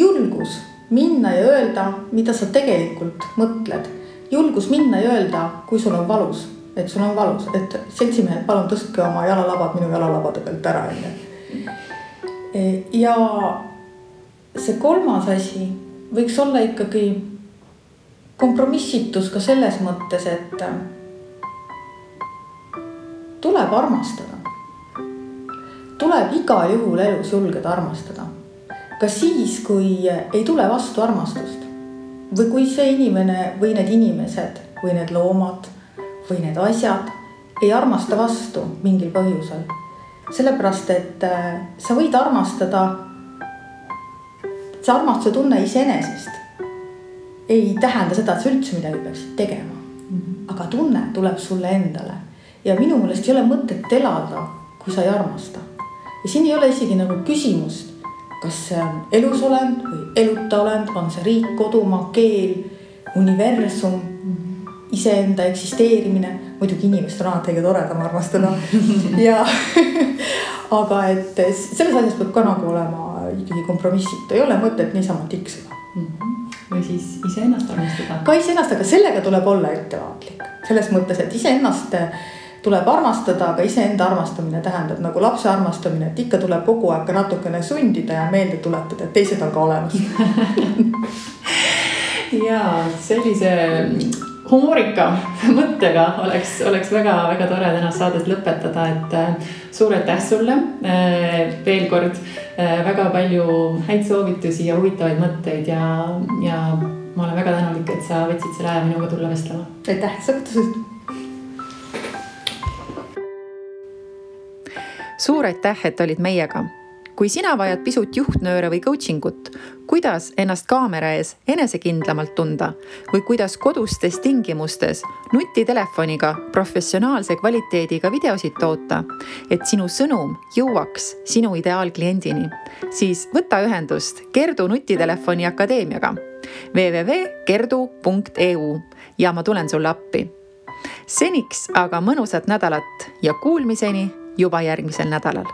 Julgus minna ja öelda, mida sa tegelikult mõtled. Julgus minna ja öelda, kui sul on valus, et sul on valus, et seltsimehed, palun tõstke oma jalalabad minu jalalabade pealt ära. Ja see 3. asi võiks olla ikkagi kompromissitus ka selles mõttes, et tuleb armastada. Tuleb igal juhul elus julgeda armastada. Ka siis, kui ei tule vastu armastust või kui see inimene või need inimesed või need loomad või need asjad ei armasta vastu mingil põhjusel. Sellepärast, et sa võid armastada, see armastuse tunne iseenesest ei tähenda seda, et sa üldse midagi peaksid tegema. Aga tunne tuleb sulle endale ja minu meelest ei ole mõtet elada, kui sa ei armasta. Ja siin ei ole isegi nagu küsimust, kas see on elusolend või eluta olend, on see riik, kodumaa, keel, universum, iseenda eksisteerimine. Muidugi inimest on alati kõige toredam armastada. Ja, aga et selles asjas peab ka nagu olema ikkagi kompromissitu. Ei ole mõtet niisama tiksuda. Või siis iseennast armastada. Ka iseennast, aga sellega tuleb olla ettevaatlik. Selles mõttes, et iseennast tuleb armastada, aga iseenda armastamine tähendab nagu lapse armastamine, et ikka tuleb kogu aeg natukene sundida ja meelde tuletada, et teised on ka olemas. Ja sellise humoorika mõttega oleks väga tore tänast saadet lõpetada, et suur aitäh sulle veel kord, väga palju häid soovitusi ja huvitavaid mõtteid ja ma olen väga tänulik, et sa võtsid selle aja minuga tulla vestlema. Aitäh, sa kutsusid. Suur aitäh, et olid meiega. Kui sina vajad pisut juhtnööre või coachingut, kuidas ennast kaamera ees enesekindlamalt tunda või kuidas kodustes tingimustes nutitelefoniga professionaalse kvaliteediga videosid toota, et sinu sõnum jõuaks sinu ideaalkliendini, siis võta ühendust Kerdu nutitelefoni akadeemiaga www.kerdu.eu ja ma tulen sulle appi. Seniks aga mõnusat nädalat ja kuulmiseni juba järgmisel nädalal.